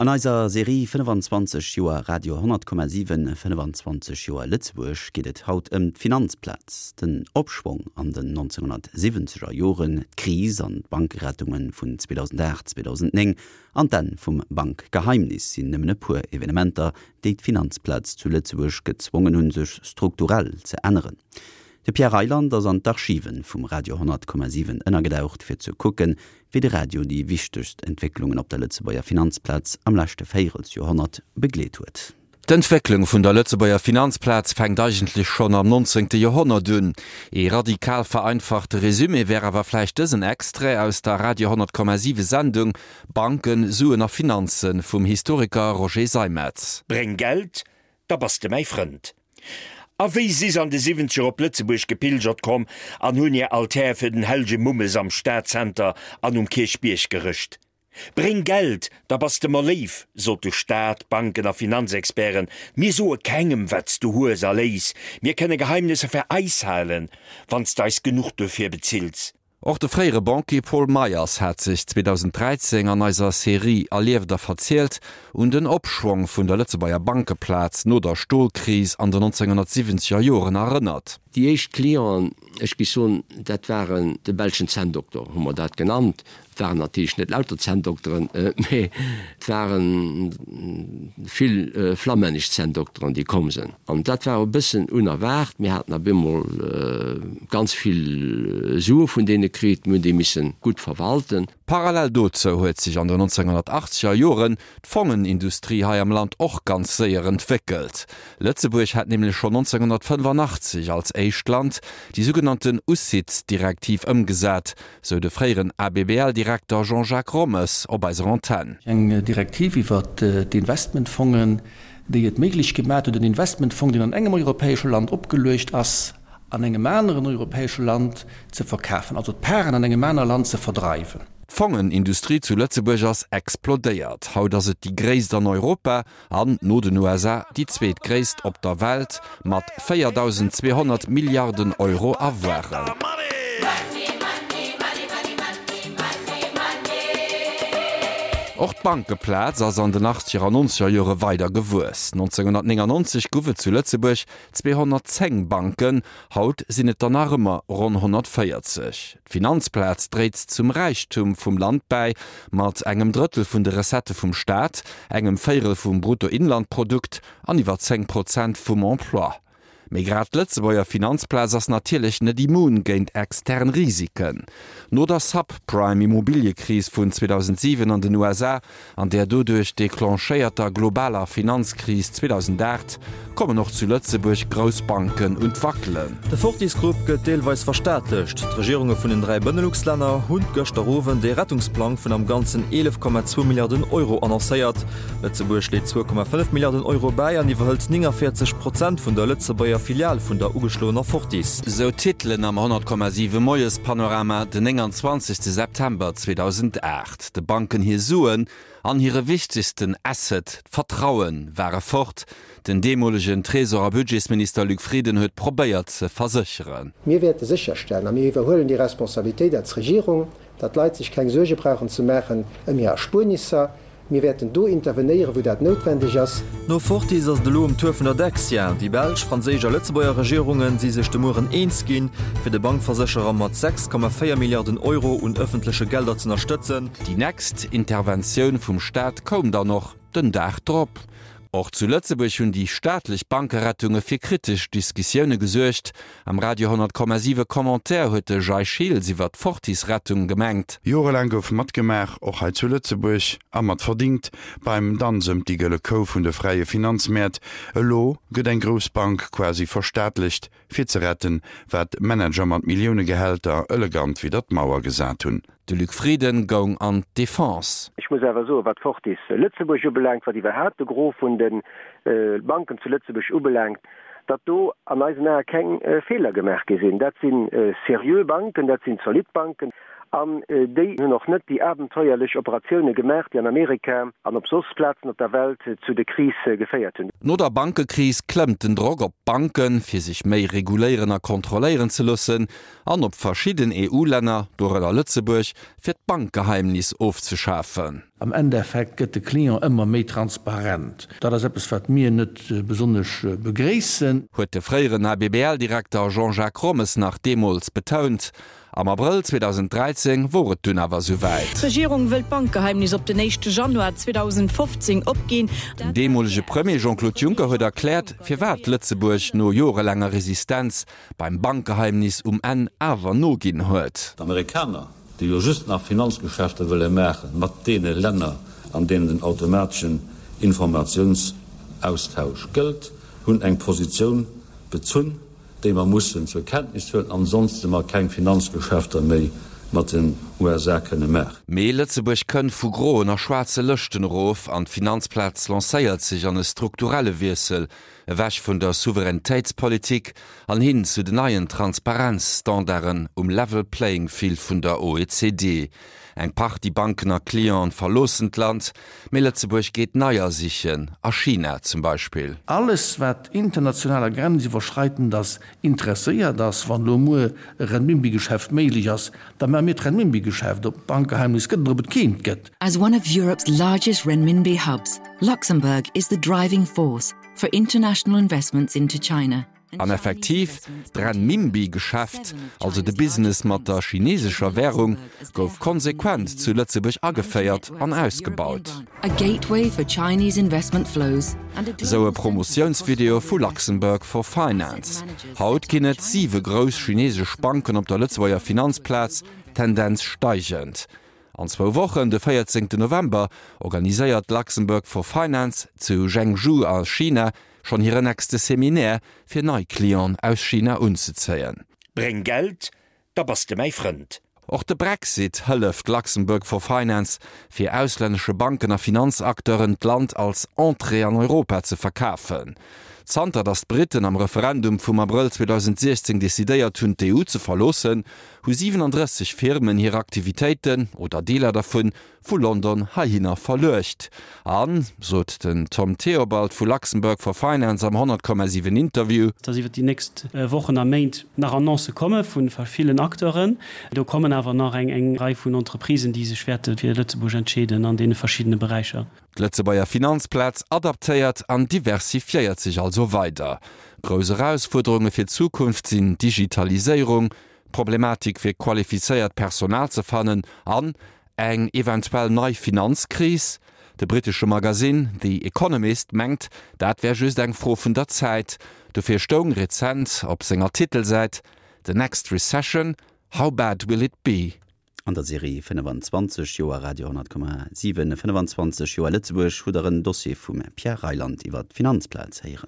An eiser Serie 25 Joer Radio 10,7, 25 Joer Lëtzebuerg geet et haut ëm d'Finanzplaz, den Opschwong an den 1970er Joren, d'Kris an d'Bankerettunge vun 2008, 2009 an d'Enn vum Bankgeheimnis sinn nëmmen e puer Evenementer, déi d'Finanzplaz zu Lëtzebuerg gezwongen hunn, sech strukturell ze änneren. De Pierre Reyland ass an d'Archive vum Radio 10,7 ënnergedaucht, fir ze kucken, wéi de Radio déi wichtegst Entwécklungen op der Lëtzebuerger Finanzplaz am leschte Véierelsjoerhonnert begleet huet. D'Entwécklung vun der Lëtzebuerger Finanzplaz fänkt eigentlech schonn am nonzéngte Joerhonnert un. Ee radikal vereinfachte Resumé wär awer vläicht dësen Extrait aus der Radio 10,7 Sendung Banken, Suen a Finanzen vum Historiker Roger Seimetz. Bréng Geld, da bass de mäi Frënd. A wéi si s'an de Siwwenzeger op Lëtzebuerg gepilgert komm an hunn hir Altär fir den hellge Mummes am Stadzenter an um Kierchbierg gerëscht. Bréng Geld, da bass de mer léif, sote Staat, Banken a Finanzexperten, mir soe kengem, wat s du hues a léiss, mir kënne Geheimnesser fir eis halen, wann s d'eis genuch duerfir bezills. Och de fréiere Banquier Paul Meyers hat sech 2013 an eiser Serie Erlieft a verzielt un den Opschwong vun der Lëtzebuerger Bankeplaz no der Stolkris an den 1970er Joren erënnert. Déi éischt Clienten, ech géif soen, dat waren de belschen Zänndokter, hu mer dat genannt. Et waren natierlech net lauter Zänndokteren, mee et ware vill flammännesch Zänndokteren, déi komm sinn. An dat war e bëssen unerwaart. Mir haten op eemol ganz vill Sue vun deene kritt. Mir hunn déi misse gutt verwalten. Parallel dozou huet sech an den 1980er Joren d'Fongenindustrie hei am Land och ganz séier entwéckelt. Lëtzebuerg hat nämlech schonn 1985 als éischt Land déi sougenannten UCITS-Direktiv ëmgesat, sou de fréieren ABBL-Direkter Jean-Jacques Rommes op eiser Antenn. Eng Direktiv iwwer d'Investmentfongen, déi et méiglech gemaat huet, en Investmentfong, deen an engem europäesche Land opgeluecht ass, an engem aneren europäesche Land ze verkafen, also d'Paren an engem aner Land ze verdreiwen. D'Fongenindustrie zu Lëtzebuerg ass explodéiert. Haut ass et déi gréisst an Europa an, no den USA, déi zweetgréisst op der Welt mat 4.200 Milliarden Euro Avoiren. Och d'Bankeplaz ass an den achtzeger an nonzeger Jore weider gewuess. 1999 guff et zu Lëtzebuerg 210 Banken, haut sinn et der nach ëmmer ronn 140. D'Finanzplaz dréit zum Räichtum vum Land bäi, mat engem Drëttel vun de Recettë vum Staat, engem Véierel vum Bruttoinlandprodukt an iwwer 10 Prozent vum Emploi. Mee grad d'Lëtzebuerger Finanzplaz ass natierlech net immun géint extern Risiken. No der Subprime-Immobiliëkris vun 2007 an den USA an där doduerch declenchéierter globaler Finanzkris 2008 kommen och zu Lëtzebuerg grouss Banken un d'Wackelen. De Fortis Group gëtt deelweis verstaatlecht. D'Regierunge vun den 3 Benelux-Länner hunn gëschter Owend ee Rettungsplang vun am Ganzen 11,2 Milliarden Euro annoncéiert. Lëtzebuerg leet 2,5 Milliarden Euro bäi an iwwerhëlt 49 Prozent vun der Lëtzebuerger Filial vun der ugeschloener Fortis. Sou d'Titelen am 100,7 Moiespanorama den 29 September 2008. De Banken hir Suen an hire wichtegsten Asset, d'Vertrauen, ware fort. Den deemolegen Tresor a Budgetsminister Luc Frieden huet probéiert ze versécheren. Mir wäerte sécherstellen, a mir iwwerhuelen déi Responsabilitéit als Regierung, datt d'Leit sech keng Suerge brauchen ze maachen ëm hir Erspuernisser. Mir wäerten do intervenéieren, wou dat noutwendeg ass. No Fortis ass et elo um Tour vun der Dexia. Déi belsch, franséisch a Lëtzebuerger Regierunge si sech de Mueren eens ginn, fir de Bankversécherer mat 6,4 Milliarden Euro un ëffentleche Gelder z'ënnerstëtzen. Déi nächst Interventioun vum Staat koum dann och den Dag drop. Och zu Lëtzebuerg hunn déi staatlech Bankerettunge fir kritesch Diskussioune gesuergt. Am Radio 100,7 Commentaire huet de Jay Schiltz iwwer d'Fortis-Rettung gemengt. Jorelaang gouf matgemaach, och hei zu Lëtzebuerg, a mat verdingt, beim Danz ëm déi gëlle Kou vun de fräie Finanzmäert. Elo gëtt eng grouss Bank quasi verstaatlecht, fir ze retten, wat Manager mat Milliounegehälter elegant widder d'Mauer gesat hunn. De Luc Frieden goung an d'Defense. Ech muss awer soen, wat Fortis Lëtzebuerg ubelaangt, wat iwwerhaapt de Gros vun de Banken zu Lëtzebuerg ubelaangt, datt do an eisen Ae keng Feeler gemaach gi sinn. Dat si seriö Banken, dat sinn zolidd Banken. An déi hunn och net déi abenteuerlech Operatioune gemaach, déi an Amerika an op soss Plazen op der Welt zu de Krise geféiert hunn. No der Bankekris klëmmt den Drock op d'Banken, fir sech méi reguléieren a kontrolléieren ze loossen, an op verschidden EU-Länner, dorënner Lëtzebuerg, fir d'Bankgeheimnis ofzeschafen. Am Endeffekt gëtt de Client ëmmer méi transparent. Dat ass eppes, wat mir net besonnesch begréissen. Huet de fréieren ABBL-Direkter Jean-Jacques Rommes nach deemools betount. Am Abrëll 2013 wor et dunn awer souwäit. D'Regierung wëll d'Bankgeheimnis op den éischte Januar 2015 opginn. Den deemolege Premier Jean-Claude Juncker huet erkläert, firwat Lëtzebuerg no jorelaanger Resistenz beim Bankgeheimnis um Enn awer noginn huet. D'Amerikaner, déi jo just nach Finanzgeschäfter wëlle maache mat deene Länner, an deenen den automateschen Informatiounsaustausch gëllt, hunn eng Positioun bezunn, déi mer mussen zur Kenntnis huelen, ansonste mer keng Finanzgeschäfter méi mat den USA kënne maachen. Mee Lëtzebuerg kënnt vu groen a schwaarze Lëschten erof an d'Finanzplaz lancéiert sech an e strukturelle Wiessel, ewech vun der Souveränitéitspolitik an hin zu den neien Transparenzstandarden um Level Playing Field vun der OECD. Eng Partie Banken a Clienten verloossen d'Land, mee Lëtzebuerg geet neier sichen, a China zum Beispill. Alles wat international a grenziwwerschreitend ass, interesséiert ass. Wann elo muer e Renminbi-Geschäft méiglech ass, da maache mir d'Renminbi-Geschäft. Ob et Bankgeheimnis gëtt oder ob et keent gëtt. As one of Europe's largest renminbi hubs, Luxembourg is the driving force for international investments into China. An effektiv, d'Renminbi-Geschäft, also de Business mat der chinesescher Währung, gouf konsequent zu Lëtzebuerg ageféiert an ausgebaut. Esou e Promotiounsvideo vu Luxembourg for Finance. Haut ginn et siwe grouss chinesesch Banken op der Lëtzebuerger Finanzplaz, Tendenz steigend. An zwou Wochen, de 14 November, organiséiert Luxembourg for Finance zu Zhengzhou a China schonn hire nächste Seminaire, fir nei Clienten aus China unzezéien. Bréng Geld, da bass de mäi Frënd. Och de Brexit hëlleft Luxembourg for Finance, fir auslännesche Banken a Finanzacteuren d'Land als Entrée an Europa ze verkafen. Zanter datt d'Britten am Referendum vum Abrëll 2016 decidéiert hunn, d'EU ze verloossen, hu 37 Firmen hir Aktivitéiten, oder Deeler dervun, vu London heihinner verluecht. An, sot den Tom Theobald vu Luxembourg for Finance am 100,7 Interview, dass iwwer déi nächst Wochen a Méint nach Annoncë komme vu villen Acteuren. Do kommen awer nach eng Rei vun Entreprisen, déi sech wäerte fir Lëtzebuerg entscheeden an deene verschiddene Beräicher. D'Lëtzebuerger Finanzplaz adaptéiert an diversifiéiert sech also weider. Grouss Erausfuerderunge fir d'Zukunft sinn d'Digitaliséierung, d'Problematik fir qualifizéiert Personal ze fannen an eng eventuell nei Finanzkris. De brittesche Magasinn The Economist mengt, dat wär just eng Fro vun der Zäit. Dofir stoung rezent op senger Titelsäit, The next recession, how bad will it be? An der Serie 25 Joer Radio 10,7, 25 Joer Lëtzebuerg hutt der en Dossier vum Pierre Reyland iwwer d'Finanzplaz héieren.